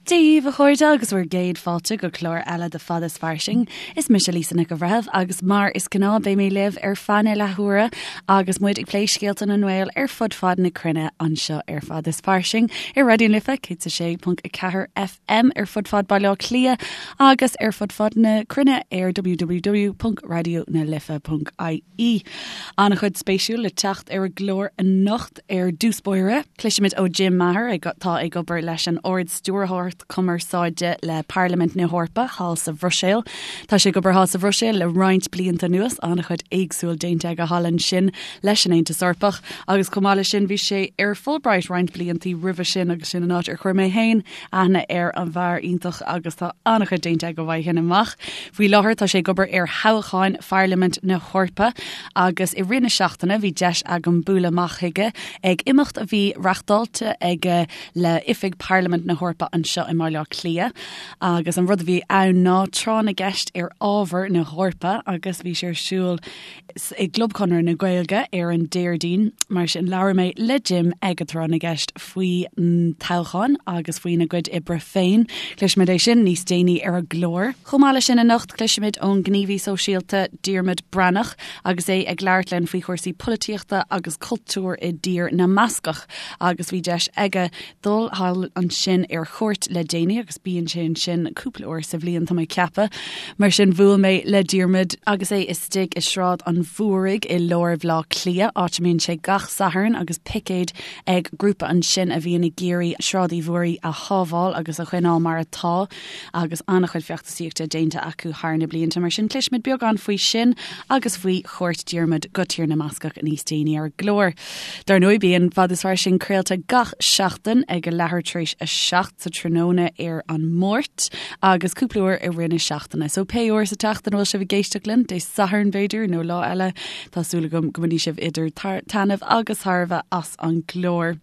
Dia daoibh a chairde agus bhur gcéad fáilte go clár eile de Fada is Fairsing. Is mise Lisa Nic an Bhreithimh agus mar is gnáth beidh mé libh ar feadh na leathuaire agus muid ag plé scéalta na nGael ar fud fad na cruinne anseo ar Fada is Fairsing ar Raidió na Life 106.4 FM ar fud fad Baile Átha Cliath agus ar fud fad na cruinne ar www.radionalife.ie. An-chuid spéisiúil le teacht ar an gclár anocht. Ar dtús báire, cloisfimid ó Jim Maher, atá ag obair leis an Ard-Stiúrthóireacht Cumarsáide le Parlaimint na hEorpa thall sa Bhruiséil. Tá sé ag obair thall sa Bhruiséil le roinnt blianta anuas, an-chuid éagsúil déanta aige thall ansin leis an Aontas Eorpach agus chomh maith leis sin bhí sé ar Fulbright roinnt blianta roimhe sin agus sin an áit ar chuir mé féin aithne ar an bhfear iontach agus tá an-chuid déanta aige uaidh sin amach. Faoi láthair tá sé ag obair ar thoghcháin Pharlaimint na hEorpa agus i rith na seachtaine bhí deis agam bualadh amach chuige ag imeacht a bhí reachtáilte aige le Oifig Parlaimint na hEorpa anseo i mBaile Átha Cliath agus an rud a bhí ann ná tráth na gceist ar ábhar na hEorpa agus bhí sé ar siúl i gClub Chonradh na Gaeilge ar an Déardaoin. Mar sin labhair mé le Jim ag an tráth na gceist faoi toghcháin agus faoina gcuid oibre féin. Cloisfimid é sin níos déanaí ar an gclár. Chomh maith leis sin anocht cloisfimid ón ngníomhaí sóisialta Diarmuid Breathnach agus é ag labhairt linn faoi chúrsaí polaitíochta agus cultúir i dTír na mBascach agus bhí deis aige dul thall ansin ar chuairt le déanaí agus bíonn sé ansin cúpla uair sa bhliain tá mé ag ceapadh. Mar sin bhuail mé le Diarmuid agus é istigh i Sráid an Mhúraigh i lár Bhaile Átha Cliath, áit a mbíonn sé gach Satharn agus picéad ag grúpa ansin a bhíonn ag iarraidh Sráid Uí Mhúraigh a shábháil agus a choinneáil mar atá agus an-chuid feachtasaíochta déanta acu thar na blianta. Mar sin cloisfimid beagán faoi sin agus faoi chuairt Diarmuid go Tír na mBascach níos déanaí ar an gclár. Dar ndóigh, bíonn Fada is Fairsing craolta gach seachtain ag a leathuair tar éis a 7 sa tráthnóna ar an Máirt agus cúpla uair i rith na seachtaine. So pé uair sa tseachtain a bhfuil sibh ag éisteacht linn, Dé Sathairn b'fhéidir nó lá eile, tá súil agam go mbainfidh sibh idir taitneamh agus tairbhe as an gclár.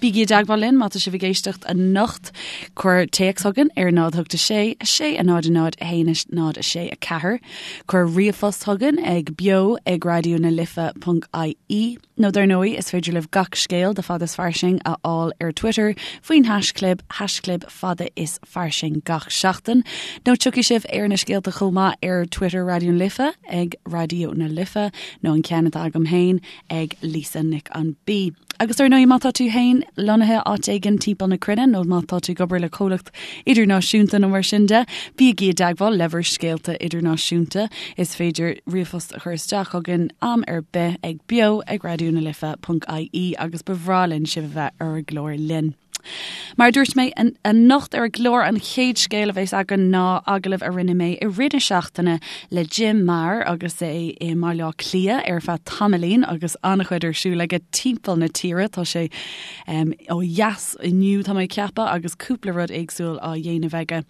Bígí i dteagmháil linn má tá sibh ag éisteacht anocht. Cuir téacs chugainn ar 0 8 6 6 0 0 1 0 6 4. Cuir ríomhphost chugainn ag beo ag raidió na life ponc ie nó dar ndóigh is féidir libh gach scéal de Fada is Fairsing a fháil ar Twitter faoin haischlib haischlib fada is fairsing gach seachtain nó tiocfaidh sibh ar na scéalta chomh maith ar Twitter Raidió na Life ag Raidió na Life nó an ceann atá agam féin ag Lisa Nic an B. Agus ar ndóigh má tá tú féin lonnaithe áit éigin timpeall na cruinne nó má tá tú ag obair le comhlacht idirnáisiúnta nó mar sin de, bígí i dteagmháil le bhur scéalta idirnáisiúnta. Is féidir ríomhphost a chur isteach chugainn am ar bith ag beo ag raidionalife.ie agus ba bhreá linn sibh a bheith ar an gclár linn. Mar a dúirt mé, anocht ar an gclár an chéad scéal a bheas againn ná agallamh a rinne mé i rith na seachtaine le Jim Maher agus é i mBaile Átha Cliath ar feadh tamaillín agus an-chuid ar siúl aige timpeall na tíre. Tá sé ó dheas inniu tá mé ag ceapadh agus cúpla rud éagsúil á dhéanamh aige.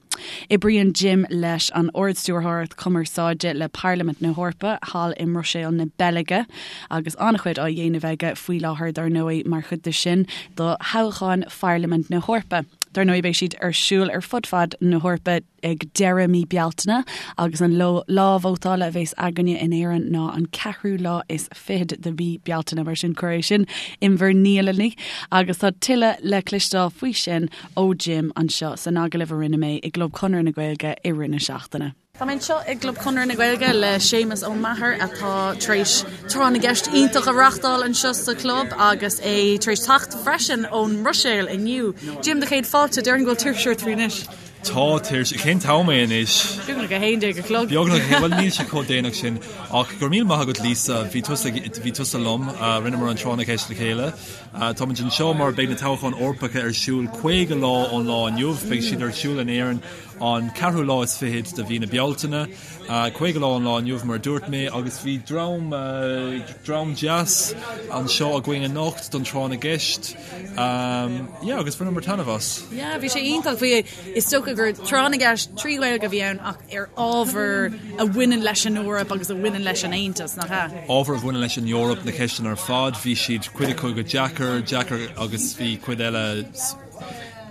Oibríonn Jim leis an Ard-Stiúrthóireacht Cumarsáide le Parlaimint na hEorpa thall i mBruiséil na Beilge. agus an-chuid á dhéanamh aige faoi láthair dar ndóigh mar chuid de sin do thoghcháin Pharlaimint na hEorpa. Dar ndóigh beidh siad ar siúl ar fud fad na hEorpa ag deireadh mí Bealtaine agus an lá vótála a bheas againne in Éirinn ná an ceathrú lá is fichead de mhí Bealtaine mar sin cuir é sin in bhur ndialanna agus tá tuilleadh le cloisteáil faoi sin ó Jim anseo san agallamh a rinne mé i gClub Chonradh na Gaeilge i rith na seachtaine. Tá mé anseo i gClub Chonradh na Gaeilge le Séamus Ó Meachair atá tar éis tráth na gceist iontach a reachtáil anseo sa chlub agus é tar éis teacht freisin ón mBruiséil inniu. Jim, do chéad fáilte, déarfainn go bhfuil tuirse ort faoi anois. Tá tuirse. Cén t-am é anois? Beagnach 11 a chlog. Beagnach, bhuel níl sé chomh déanach sin. Ach go raibh míle maith agat Lisa, bhí tusa, bhí tusa liom, rinneamar an tráth na gceist le chéile. Táimid anseo mar beidh na toghcháin Eorpacha ar siúl 50 lá ón lá inniu, beidh siad ar siúl in Éirinn an ceathrú lá is fichead de mhí na Bealtaine, 50 lá ón lá inniu mar a dúirt mé, agus bhí dream, dream deas anseo againn anocht don tráth na gceist. Yeah, agus bhaineamar taitneamh as. Yeah, bhí sé iontach. Bhí, is dócha gur tráth na gceist trí Ghaeilge a bhí ann ach ar ábhar a bhaineann leis an Eoraip agus a bhaineann leis an Aontas, nach ea? Ábhar a bhaineann leis an Eoraip, na ceisteanna ar fad, bhí siad, cuid acu go deacair, deacair agus bhí cuid eile.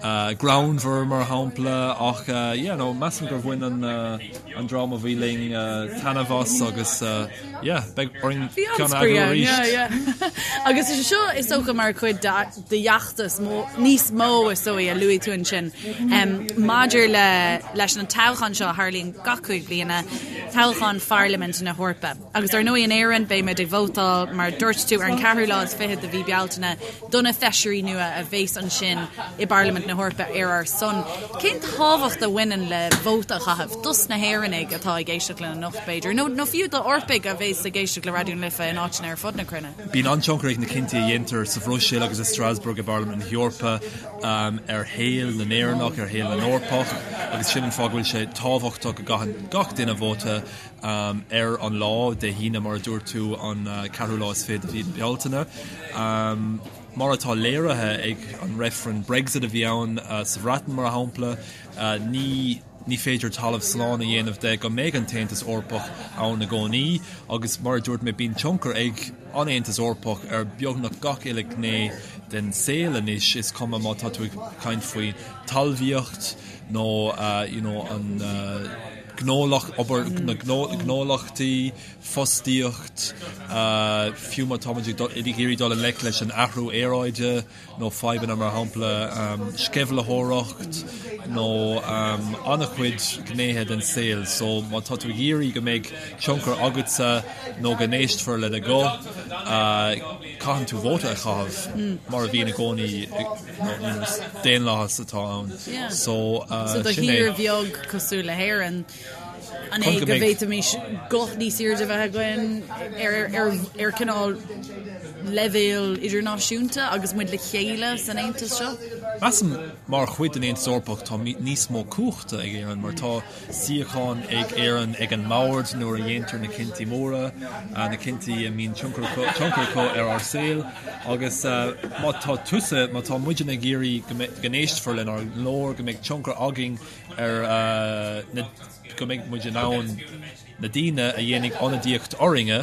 Greannmhar mar shampla ach yeah no measaim gur bhain an an dream a bhí linn taitneamh as agus yeah beidh orainn ceann a eagrú arís. Yeah yeah. Agus is é seo is dócha mar chuid de d'fheachtas níos mó is dóigh a luaigh tú ansin maidir le leis an toghchán seo a tharlaíonn gach 5 bliana, toghchán Pharlaimint na hEorpa. Agus ar ndóigh in Éirinn beidh muid ag vótáil mar dúirt tú ar an ceathrú lá is fichead de mhí Bealtaine do na feisirí nua a bheas ansin i bParlaimint na hEorpa ar ár son. Cén tábhacht a bhaineann le vóta a chaitheamh dos na hÉireannaigh atá ag éisteacht linn anocht b'fhéidir, nó nó fiú d'Eorpaigh a bheas ag éisteacht le Raidió na Life in áiteanna ar fud na cruinne? Bíonn an-tionchar ag na cinntí a dhéantar sa Bhruiséil agus i Strasbourg i bParlaimint na hEorpa ar shaol na nÉireannach, ar shaol na nEorpach agus sin an fáth go bhfuil sé tábhachtach go gcaitheann gach duine vóta. Ar an lá, Dé hAoine mar a dúirt tú, an ceathrú lá is fiche de mhí na Bealtaine, mar atá léirithe ag an reifreann Brexit a bhí ann sa Bhreatain mar shampla, ní ní féidir talamh slán a dhéanamh de go mbeidh an tAontas Eorpach ann i gcónaí agus mar a dúirt mé bíonn tionchar ag an Aontas Eorpach ar beagnach gach uile ghné den saol anois, is cuma má tá tú ag caint faoi talmhaíocht nó you know an gnólacht, obair na gnólachtaí, fostaíocht, fiú má táimid ag iarraidh dul i ngleic leis an athrú aeráide nó fadhbanna mar shampla sceimhlitheoireacht nó an-chuid gnéithe den saol. So má tá tú ag iarraidh go mbeidh tionchar agatsa nó go n-éistfear le do ghuth, caitheann tú vóta a chaitheamh mar a bhíonn i gcónaí. Daonlathas atá ann. So, So do thír bheag cosúil le hÉirinn, an é go bhféadfaimis guth níos airde a bheith againn ar ar cineál leibhéal idirnáisiúnta agus muid le chéile san Aontas seo? Measaim mar chuid den Aontas Eorpach tá níos mó cumhachta ag Éirinn mar tá suíochán ag Éirinn ag an mbord nuair a dhéantar na cinntí móra, na cinntí a mbíonn tionchar acu ar ár saol agus má tá tusa, má tá muidne ag iarraidh go n-éistfear lenár nglór, go mbeidh tionchar againn ar na, go mbeidh muid in ann na daoine a dhéanfaidh ionadaíocht orainne,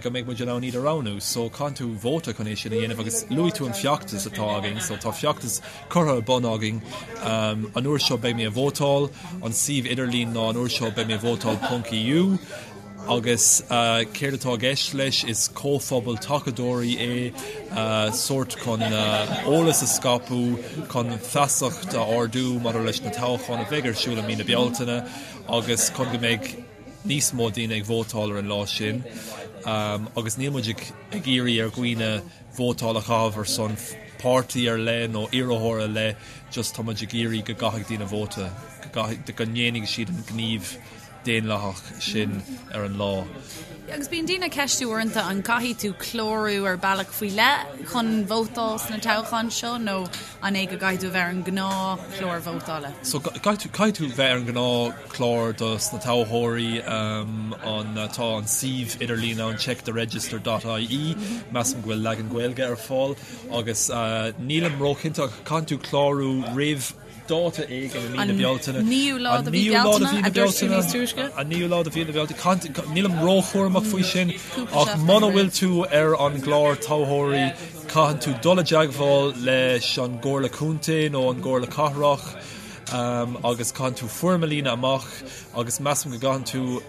go mbeidh muid in ann iad a roghnú. So caitheann tú vóta chun é sin a dhéanamh agus luaigh tú an feachtas atá againn, so tá feachtas curtha ar bun againn. An uair seo beidh mé ag vótáil, an suíomh idirlín ná an uair seo beidh mé ag vótáil ponc EU agus céard atá i gceist leis is comhphobal tacadóirí é, sórt chun eolas a scaipeadh, chun feasacht a ardú maidir leis na toghcháin a bheidh ar siúl i mí na Bealtaine agus chun go mbeidh níos mó daoine ag vótáil ar an lá sin agus níl muid ag iarraidh ar dhaoine vótáil a chaitheamh ar son páirtí ar leith nó iarrthóir ar leith, just tá muid ag iarraidh go gcaithfidh daoine vóta, go gcaithfidh, go ndéanfaidh siad an gníomh daonlathach sin ar an lá. Agus bíonn daoine ag ceistiú uaireanta an gcaithfidh tú clárú ar bealach faoi leith chun vótáil sna toghcháin seo nó an é go gcaithfidh tú a bheith ar an ngnáthchlár vótála? So caithfidh tú, caithfidh tú bheith ar an ngnáthchlár dos na toghthóirí, an, tá an suíomh idirlín ann checktheregister dot ie, measaim go bhfuil leagan Gaeilge ar fáil agus nílim róchinnte ach caithfidh tú clárú roimh dáta éigin i mí na Bealtaine. An naoú lá de mhí Bealtaine, a dúirt tú níos túisce? An naoú lá de mhí na Bealtaine. Nílim róchúramach faoi sin ach muna bhfuil tú ar an gclár toghthóirí caitheann tú dul i dteagmháil leis an gComhairle Contae nó an gComhairle Cathrach agus caitheann tú foirm a líonadh amach agus measaim go gcaitheann tú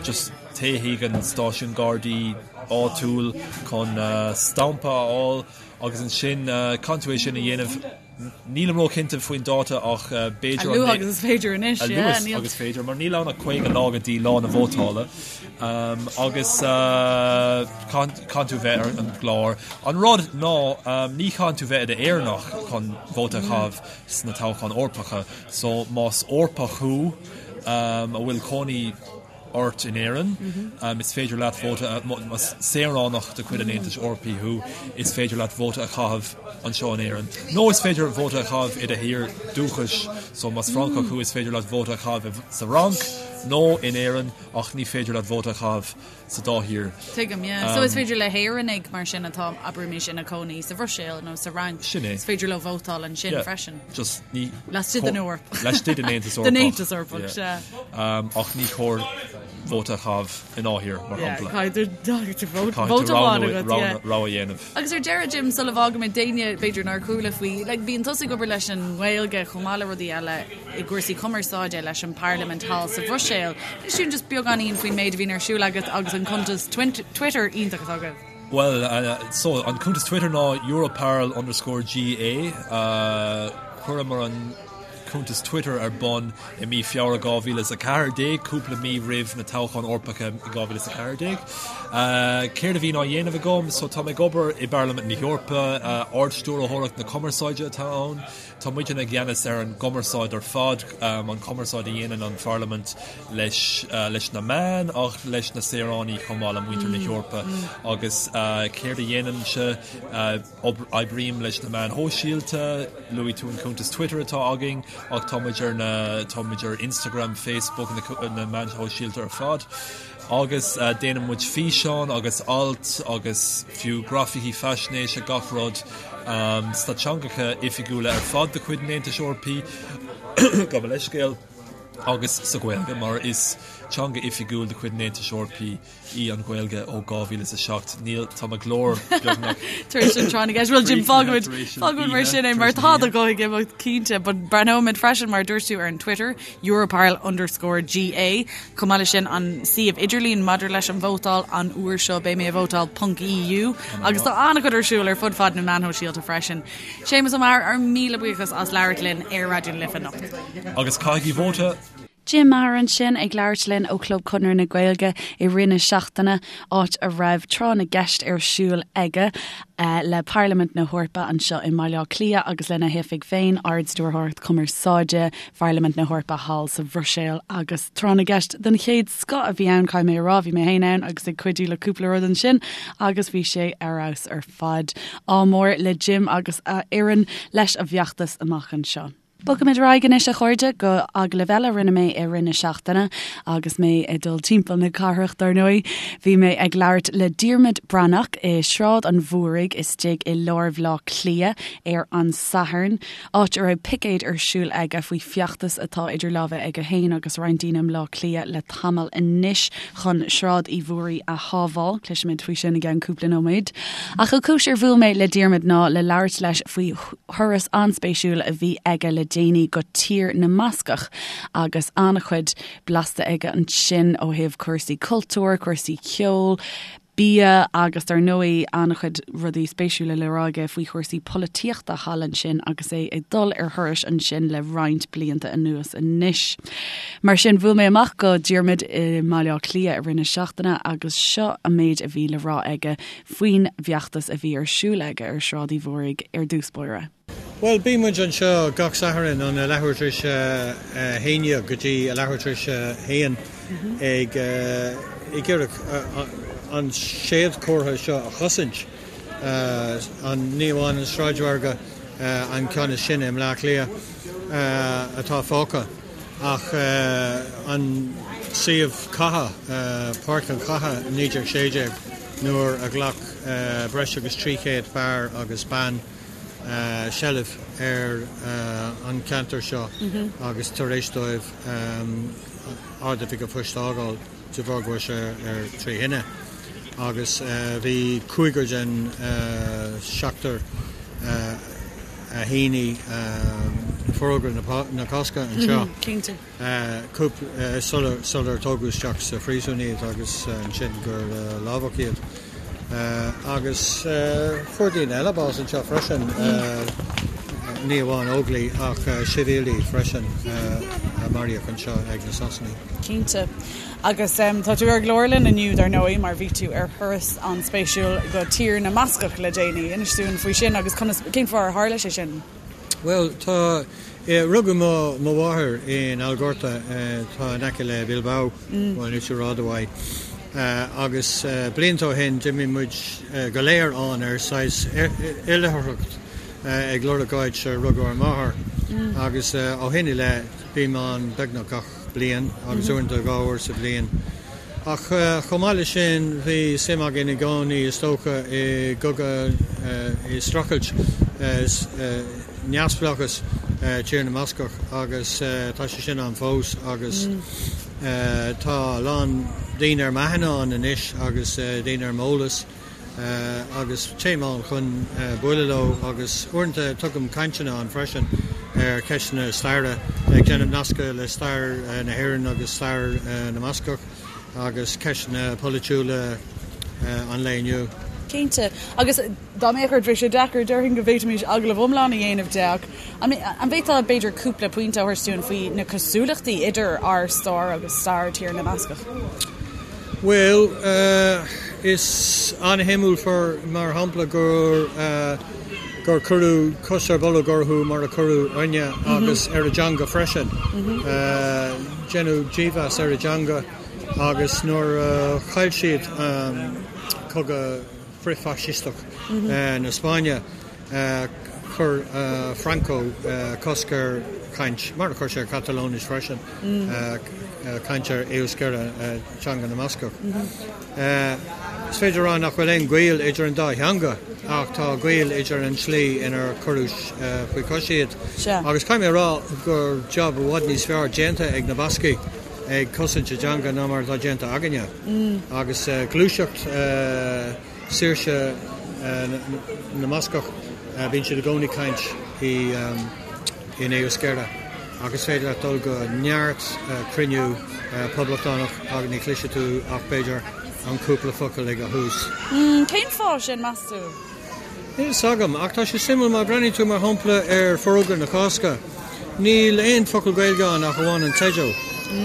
just téigh chuig an stáisiún Gardaí áitiúil chun stampa a fháil agus ansin caitheann tú é sin a dhéanamh Nílim róchinnte faoin dáta ach b'fhéidir an. A luaithe agus is féidir anois, yeah. A luaithe agus is féidir, mar níl ann ach 50 lá go dtí lá na vótála agus caitheann tú bheith ar an gclár. An rud ná ní chaitheann tú bheith i d'Éireannach chun vóta a chaitheamh sna toghcháin Eorpacha, so más Eorpach thú a bhfuil cónaí ort in Éirinn, is féidir leat vóta a, más saoránach de chuid an Aontais Eorpaigh thú, is féidir leat vóta a chaitheamh anseo in Éirinn. Nó is féidir vóta a chaitheamh i do thír dúchais, so más Francach thú is féidir leat vóta a chaitheamh sa Fhrainc. nó in Éirinn ach ní féidir leat vóta a chaitheamh sa dá thír. Tuigim, yeah. So is féidir le hÉireannaigh mar sin atá, abraimis, ina cónaí sa Bhruiséil nó sa Fhrainc, Sin é. is féidir leo vótáil ansin Yeah. freisin. Just ní. Laistigh den Eoraip. Laistigh den Aontas Eorpach. Den Aontas Eorpach, Yeah. sea. Ach ní chóir vóta a chaitheamh i ndá thír, mar Yeah, shampla. caithfidh tú Caithfidh tú vóta amháin roghnú- agat, roghnú- yeah. rogha a dhéanamh. Agus ar deireadh, Jim, sula bhfágaimid d'éinne b'fhéidir nár chuala faoi, like, bíonn tusa ag obair leis an nGaeilge chomh maith le rudaí eile i gcúrsaí cumarsáide leis an bParlaimint thall sa Bhruiséil. Inis dúinn just beagáinín faoin méid a bhíonn ar siúl agat agus an cuntas Twitter iontach atá agaibh. Bhuel, so, an cuntas Twitter ná Europarl underscore GA. Chuireamar an cuntas Twitter ar bun i mí Feabhra 2014, cúpla mí roimh na toghcháin Eorpacha i 2014. Céard a bhíonn á dhéanamh agam? So, tá mé ag obair i bParlaimint na hEorpa, Ard-Stiúrthóireacht na Cumarsáide atá ann. Tá muidne i gceannas ar an gcumarsáid ar fad, an chumarsáid a dhéanann an Pharlaimint leis leis na meáin ach leis na saoránaigh chomh maith le muintir na hEorpa. Agus céard a dhéanaimse? Oibrím leis na meáin shóisialta, luaigh tú an cuntas Twitter atá againn ach tá muid ar na tá muid ar Instagram, Facebook, na meáin shóisialta ar fad. Agus déanann muid físeáin agus ailt agus fiú grafaicí faisnéise, gach rud sna teangacha oifigiúla ar fad de chuid an Aontais Eorpaigh, gabh mo leithscéal, agus sa Ghaeilge, mar is teanga oifigiúil de chuid an Aontais Eorpaigh í an Ghaeilge ó 2007. Níl, tá mo ghlór beagnach. Tar éis an tráth na gceist. Bhuel, Jim, fágfaimid, fágfaimid mar sin é, mar tá do ghuth ag imeacht cinnte, but breathnóimid freisin, mar a dúirt tú, ar an Twitter, Europarl underscore GA. Chomh maith leis sin, an suíomh idirlín maidir leis an vótáil an uair seo, beidh mé ag vótáil ponc EU agus tá an-chuid ar siúl ar fud fad na meán shóisialta freisin. Séamus Ó Meachair, ár míle buíochas as labhairt linn ar Raidió na Life anocht. Agus caithigí vóta! Jim Maher ansin ag labhairt linn ó Chlub Chonradh na Gaeilge i rith na seachtaine, áit a raibh tráth na gceist ar siúl aige le Parlaimint na hEorpa anseo i mBaile Átha Cliath agus lena hoifig féin, Ard-Stiúrthóireacht Cumarsáide Pharlaimint na hEorpa thall sa Bhruiséil agus tráth na gceist den chéad scoth a bhí ann, caithfidh mé a rá, bhí mé féin ann agus ag cuidiú le cúpla rud ansin agus bhí sé ar fheabhas ar fad. Ádh mór le Jim agus a fhoireann leis an bhfeachtas amach anseo. Bogaimid ar aghaidh anois a chairde go agallamh eile a rinne mé i rith na seachtaine agus mé ag dul timpeall na cathrach dar ndóigh. Bhí mé ag labhairt le Diarmuid Breathnach i Sráid an Mhúraigh istigh i lár Bhaile Átha Cliath ar an Satharn. áit a raibh picéad ar siúl aige faoi feachtas atá idir lámha aige féin agus roinnt daoine i mBleá Cliath le tamall anois chun Sráid Uí Mhúraí a shábháil. Cloisfimid faoi sin i gceann cúpla nóiméad. Ach an chúis ar bhuail mé le Diarmuid ná le labhairt leis faoi thuras an-spéisiúil a bhí aige le déanaí go Tír na mBascach agus an-chuid blasta aige ansin ó thaobh cúrsaí cultúir, cúrsaí ceoil, bia agus dar ndóigh an-chuid rudaí spéisiúla le rá aige faoi chúrsaí polaitíochta thall ansin agus é ag dul ar thurais ansin le roinnt blianta anuas anois. Mar sin bhuail mé amach go Diarmuid i mBaile Átha Cliath i rith na seachtaine agus seo an méid a bhí le rá aige faoin bhfeachtas a bhí ar siúl aige ar Shráid Uí Mhúraigh ar dtús báire. Bhuel, bíonn muid anseo gach Satharn ón leathuair tar éis a haon dhéag go dtí a leathuair tar éis a haon ag ag iarraidh an séadchomhartha seo a chosaint, an ní amháin an sráidmhargadh, an ceann is sine i mBleá Cliath atá fágtha, ach an suíomh catha, Páirc an Chatha 1916 nuair a ghlac breis agus 300 fear agus bean seilbh ar an cheantar seo agus tar éis dóibh Ard-Oifig an Phoist a fhágáil de bharr go raibh sé ar trí thine agus bhí cúigear den seachtar a shínigh Forógra na Cásca anseo. Sular tógadh isteach sa phríosún iad agus ansin gur lámhach iad. Agus fuair daoine eile bás anseo freisin, ní amháin Óglaigh ach sibhialaigh freisin a maraíodh anseo ag na Sasanaigh. Cinnte. Agus tá tú ar an gclár linn inniu dar ndóigh mar bhí tú ar thuras an-spéisiúil go Tír na mBascach le déanaí. Inis dúinn faoi sin agus conas, cén fáth ar tharla sé sin? Bhuel, tá. Rugadh mo mháthair in Algorta, atá in aice le Bilbao, bhuel níos rud uaidh, agus blianta ó shin d'imigh muid go léir ann ar saghas oilithreacht. ag lorg áit ar rugadh ár máthair agus ó shin i leith bím ann beagnach gach bliain agus uaireanta 2 uair sa bhliain. Ach chomh maith leis sin bhí suim againn i gcónaí is dócha i gcogadh, i streachailt neamhspleáchas Tír na mBascach agus tá sé sin ann fós agus tá a lán daoine ar m'aithne ann anois agus daoine ar m'eolas. agus téim ann chun bualadh leo agus uaireanta tugaim cainteanna ann freisin ar cheisteanna staire, ag déanamh nascadh le stair na hÉireann agus stair na mBascach agus ceisteanna polaitiúla an lae inniu. Cinnte. Agus dá mbeadh ort, bheadh sé deacair, déarfainn go bhféadfaimis agallamh iomlán a dhéanamh de ach an bhféadfá b'fhéidir cúpla pointe a thabhairt dúinn faoi na cosúlachtaí idir ár stair agus stair Tír na mBascach? Bhuel, is an-shuimiúil mar shampla gur gur cuireadh cos ar bolg orthu mar a cuireadh orainne agus ar a dteanga freisin. Deineadh dímheas ar a dteanga agus nuair a chaill siad cogadh frith-fhaisisteach na Spáinne, chuir Franco cosc ar chaint, mar a chuir sé ar Chatalóinis freisin, caint ar Euskera, teanga na mBascach. Is féidir a rá nach bhfuil aon ghaol idir an dá theanga ach tá gaol idir an tslí inar cuireadh faoi chois iad. Agus caithfidh mé a rá gur jab i bhfad níos fearr déanta ag na Bascaigh ag cosaint a dteanga ná mar atá déanta againne. Agus gluaiseacht. saoirse na mBascach, bíonn siad i gcónaí ag caint in Euskera ach is féidir leat dul go neart cruinniú poblachtánach agus ní chloisfidh tú ach b'fhéidir an cúpla focal ag a thús. Cén fáth sin, meas tú? Níl fhios agam, ach tá sé suimiúil má bhreathnaíonn tú mar shampla ar Forógra na Cásca, níl aon focal Gaeilge ann ach amháin an teideal.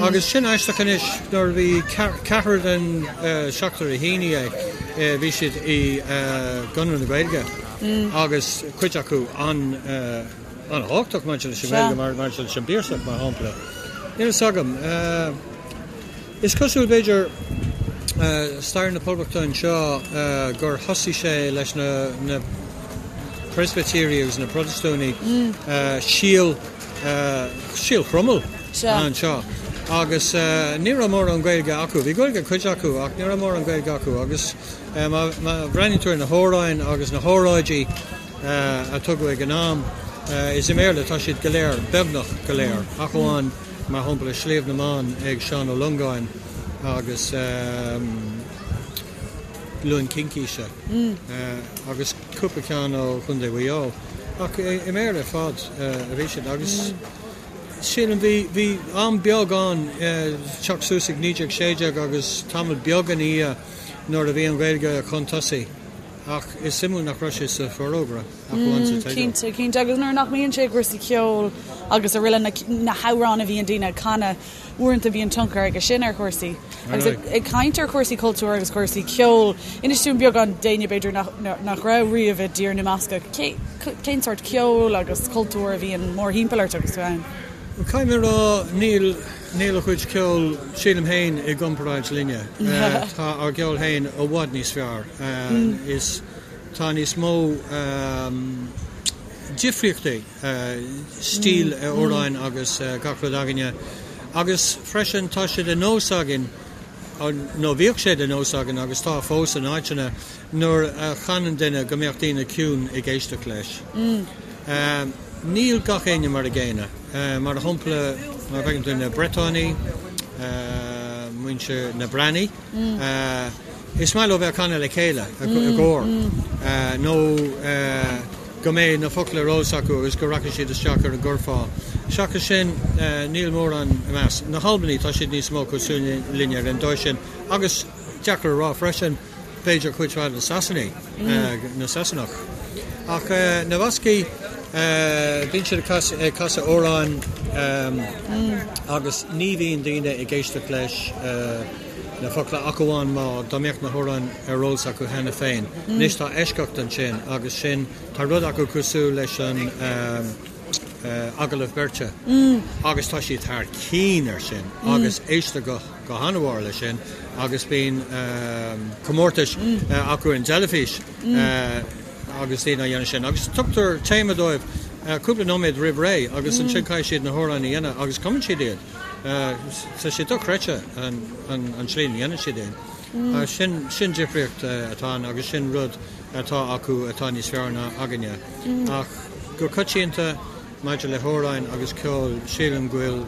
Agus sin aisteach anois, nuair a bhí ceathrar den seachtar a shínigh é, bhí siad i gConradh na Gaeilge agus cuid acu an-thábhachtach maidir leis an nGaeilge, maidir leis an bPiarsach mar shampla. Níl fhios agam. Is cosúil, b'fhéidir, stair na Poblachta anseo gur thosaigh sé leis na Preispitéirigh agus na Protastúnaigh, síol, síol Chromail anseo agus ní raibh mórán Gaeilge acu. Bhí Gaeilge ag cuid acu ach ní raibh mórán Gaeilge acu agus má bhreathnaíonn tú ar na hamhráin agus na hóráidí a tugadh ag an am, is i mBéarla atá siad go léir, beagnach go léir, ach amháin mar shampla Sliabh na mBan ag Seán Ó Longáin agus Luan Cincíse agus cúpla ceann ó Chontae Mhaigh Eo. Ach i mBéarla ar fad a bhí siad agus sílim bhí bhí am beag ann teacht suas ag 1916 agus tamall beag ina dhiaidh nuair a bhí an Ghaeilge chun tosaigh ach is suimiúil nach raibh sé sa Forógra. Ach amháin sa teideal. Cinnte, cinnte. Agus nuair nach mbíonn sé i gcúrsaí ceoil agus araile, na hamhráin a bhíonn daoine ag canadh, uaireanta bíonn tionchar aige sin ar chúrsaí. Agus ag caint ar chúrsaí cultúir agus cúrsaí ceoil, inis dúinn beagán d'éinne b'fhéidir nach raibh riamh i dTír na mBascach, cén sórt ceoil agus cultúir a bhíonn mórthimpeall ort agus tú ann? Caithfidh mé a rá, níl, níl a chuid ceoil, sílim féin, i gcomparáid linne. Tá ár gceol féin i bhfad níos fearr. Is. Tá níos mó difríochtaí stíl amhráin agus gach rud againne agus freisin tá sé de nós againn, nó bhíodh sé de nós againn agus tá fós in áiteanna, nuair a chanann duine go mbeadh daoine ciúin ag éisteacht leis. Níl gach éinne mar a gcéanna. Mar shampla, má fheiceann tú na Bretánaigh, muintir na Breatnaise, Is maith leo bheith ag canadh le chéile i gcór nó go mbeidh na focla ar eolas acu agus go rachaidh siad isteach ar an gcurfá. Seachas sin, níl mórán i measc na hAlbanaigh, tá siad níos mó cosúil linne ar an dóigh sin agus deacair a rá freisin, b'fhéidir cuid mhaith de na Sasanaigh, na Sasanach. Ach na Bascaigh, bíonn siad ag casadh amhráin agus ní bhíonn daoine ag éisteacht leis. na focla ach amháin má dá mbeadh na hamhráin ar eolas acu cheana féin. Anois tá eisceacht ansin agus sin, tá rud acu cosúil leis an agallamh beirte agus tá siad thar cinn ar sin agus éistear go go han-mhór leis sin agus bíonn comórtais acu ar an dteilifís. Agus daoine á dhéanamh sin. Agus tugtar téama dóibh cúpla nóiméad roimh ré agus ansin caithfidh siad na hamhráin a dhéanamh agus cumann siad iad. Tá sé dochreidte an tslí a ndéanann siad iad. Sin sin difríocht atá ann agus sin rud atá acu atá níos fearr ná againne. Ach go coitianta maidir le hamhráin agus ceol sílim go bhfuil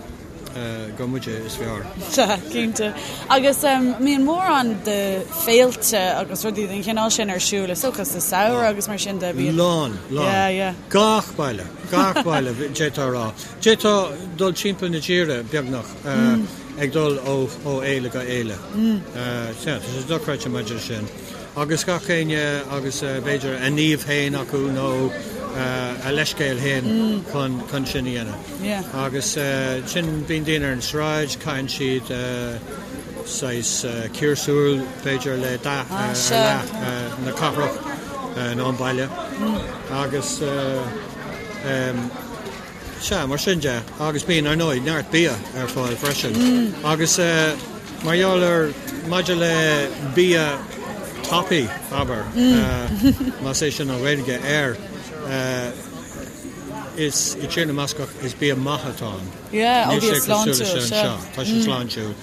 gur muide is fearr. Sea, cinnte. Agus mbíonn mórán de féilte agus rudaí den chineál sin ar siúl, is dócha, sa samhradh agus mar sin de, bíonn. Lán, lán. Yeah, yeah. Gach baile, gach baile, d'fhéadfá a rá. D'fhéadfá dul timpeall na tíre, beagnach, ag dul ó fhéile go fhéile. Sea, tá sé dochreidte maidir leis sin. Agus gach éinne agus b'fhéidir a naomh féin acu nó a leithscéal féin chun sin a dhéanamh. Agus sin, bíonn daoine ar an sráid, caitheann siad saghas ciarsúr b'fhéidir le dath ar leith na cathrach nó an baile. Agus Sea, mar sin de. Agus bíonn, ar ndóigh, neart bia ar fáil freisin. Agus mar gheall ar, maidir le bia tapaidh, abair, más é sin an Ghaeilge air, is i dTír na mBascach is bia maith atá ann. Yeah, ó bia sláintiúil, sea. Tá sé sláintiúil.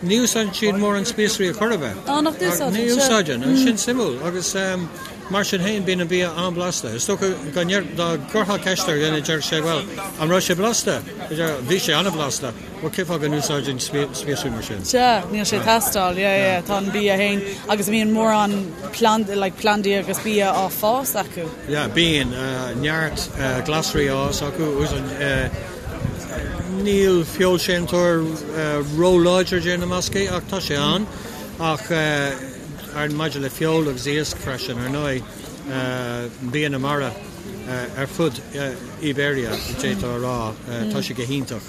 Ní úsáideann siad mórán spíosraí ar chor ar bith. Á, nach n-úsáideann? Ní úsáideann, agus sin suimiúil. Agus mar sin féin, bíonn an bia an-bhlasta. Is dócha go ndeir, dá gcuirfeá ceist ar dhuine, déarfadh sé, bhuel, an raibh sé blasta? Bhí sé an-bhlasta. Bhuel, cén fáth go n-úsáideann spíosraí mar sin? Sea, níl sé ag teastáil. Yeah, yeah, tá an bia féin. Agus bíonn mórán pland, like, plandaí agus bia á fás acu. Yeah, bíonn neart glasraí á fhás acu. Úsáideann. Níl feoilséantóir ró-láidir i dTír na mBascach ach tá sé ann. Ach maidir le feoil agus iasc freisin, ar ndóigh, bia na mara ar fud Iberia, d'fhéadfá a rá, tá sé go hiontach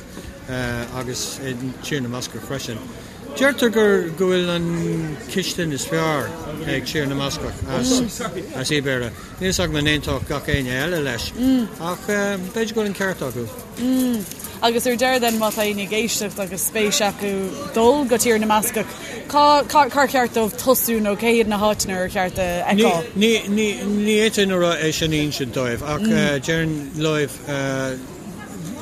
agus i dTír na mBascach freisin. Deirtear gur go bhfuil an chistin is fearr ag Tír na mBascach as Iberia. Níl a fhios agam an aontódh gach éinne eile leis, ach b'fhéidir go bhfuil an ceart acu. Agus ar deireadh then, má tá éinne ag éisteacht agus spéis acu dul go Tír na mBascach, cá, cár cheart dóibh tosú nó cé hiad na háiteanna ar cheart a fheiceáil? Ní, ní, ní fhéadfainn a rá é sin a insint dóibh, ach déarfainn leo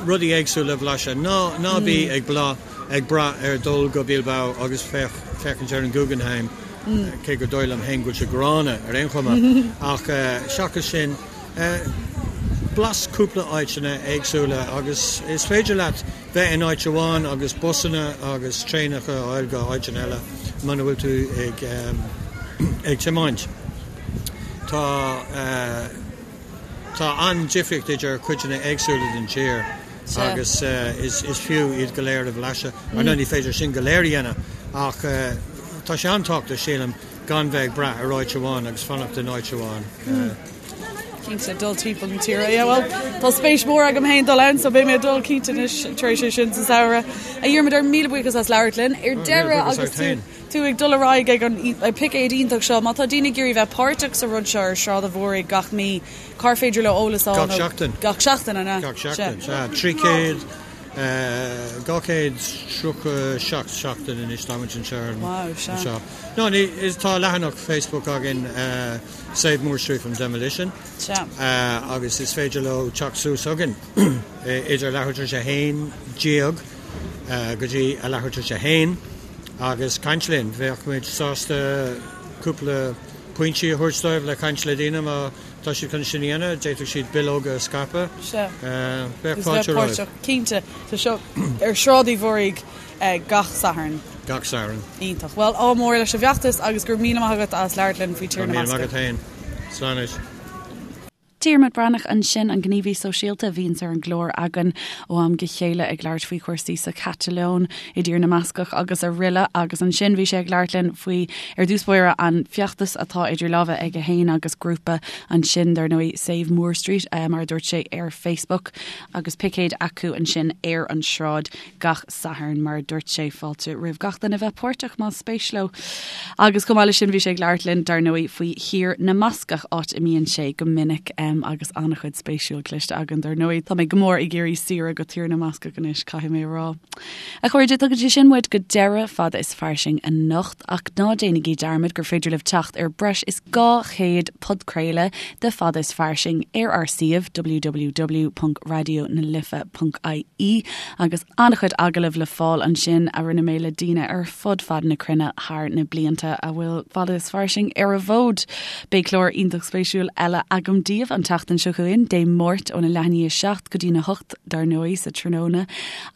rudaí éagsúla a bhlaiseadh. Ná, ná bí ag bla, ag brath ar dul go Bilbao agus féach, féachaint ar an Guggenheim. cé gur dóigh liom féin go bhfuil sé gránna ar aon chuma, ach seachas sin, blais cúpla áiteanna éagsúla agus is féidir leat bheith in áit amháin agus busanna agus traenacha a fháil go áiteanna eile muna bhfuil tú ag ag tiomáint. Tá Tá an-difríocht idir cuideanna éagsúla den tír agus is fiú iad go léir a bhlaiseadh. Ar ndóigh ní féidir sin go léir a dhéanamh ach tá sé an-tábhachtach, sílim, gan bheith ag brath ar áit amháin agus fanacht in áit amháin. Cinnte, dul timpeall na tíre. Yeah, well, tá spéis mhór agam féin dul ann, so beidh mé ag dul cinnte anois tar éis é sin sa samhradh. A Dhiarmuid, míle buíochas as labhairt linn. Ar deireadh agus tú tú ag dul ar aghaidh ag an picéad iontach seo, má tá daoine ag iarraidh bheith páirteach sa rud seo ar Sráid an Mhúraigh gach mí, cár féidir leo eolas a fháil? Gach seachtain. Gach seachtain, an ea? Gach seachtain, sea. 300, 237 seachtain anois táimid anseo ar an. Wow, sea. Anseo. No, ní, is, tá leathanach Facebook againn, Save Moore Street from Demolition. Sea. Agus is féidir leo teacht suas chugainn idir leathuair tar éis a haon déag go dtí a leathuair tar éis a haon agus caint linn. Bheadh muid sásta cúpla pointí a thabhairt dóibh le caint le daoine má tá siad chun sin a dhéanamh. D'fhéadfadh siad bileoga a scaipeadh. Sea. Bheadh fáilte romhaibh. Cinnte. Tá seo ar Sráid Uí Mhúraigh gach Satharn. Gach Satharn. Iontach. Bhuel, ádh mór leis an bhfeachtas agus go raibh míle maith agat as labhairt linn faoi Tír na Go raibh míle maith agat féin. Slán anois. Diarmuid Breathnach ansin, an gníomhaí sóisialta a bhíonns ar an gclár againn ó am go chéile ag labhairt faoi chúrsaí sa Chatalóin, i dTír na mBascach agus araile agus ansin bhí sé ag labhairt linn faoi, ar dtús báire, an feachtas atá idir lámha aige féin agus grúpa ansin, dar ndóigh, Save Moore Street, mar a dúirt sé ar Facebook, agus picéid acu ansin ar an sráid gach Satharn, mar a dúirt sé, fáilte roimh gach duine bheith páirteach más spéis leo. Agus chomh maith leis sin bhí sé ag labhairt linn, dar ndóigh, faoi Thír na mBascach, áit a mbíonn sé go minic. Agus an-chuid spéisiúil cloiste againn dar ndóigh. Tá mé go mór ag iarraidh saoire go Tír na mBascach anois, caithfidh mé a rá. A chairde, tugann sé sin muid go deireadh Fada is Fairsing anocht, ach ná déanaigí dearmad gur féidir libh teacht ar breis is 200 podchraoladh de Fada is Fairsing ar ár suíomh www.radionalife.ie agus an-chuid agallamh le fáil ansin a rinne mé le daoine ar fud fad na cruinne thar na blianta a bhfuil Fada is Fairsing ar an bhfód. Beidh clár iontach spéisiúil eile agam daoibh an tseachtain seo chugainn, Dé Máirt óna leath i ndiaidh 7 go dtína 8 dar ndóigh sa tráthnóna.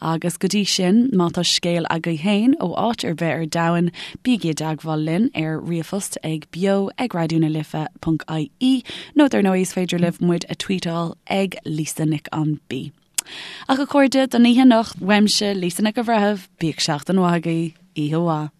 Agus go dtí sin, má tá scéal agaibh féin ó áit ar bith ar domhan, bígí i dteagmháil linn ar ríomhphost ag beo ag raidionalife.ie nó dar ndóigh is féidir libh muid a tweetáil ag Lisa Nic an B. Ach a chairde, don oíche anocht, uaimse, Lisa Nic an Bhreithimh, bíodh seachtain mhaith agaibh, oíche mhaith.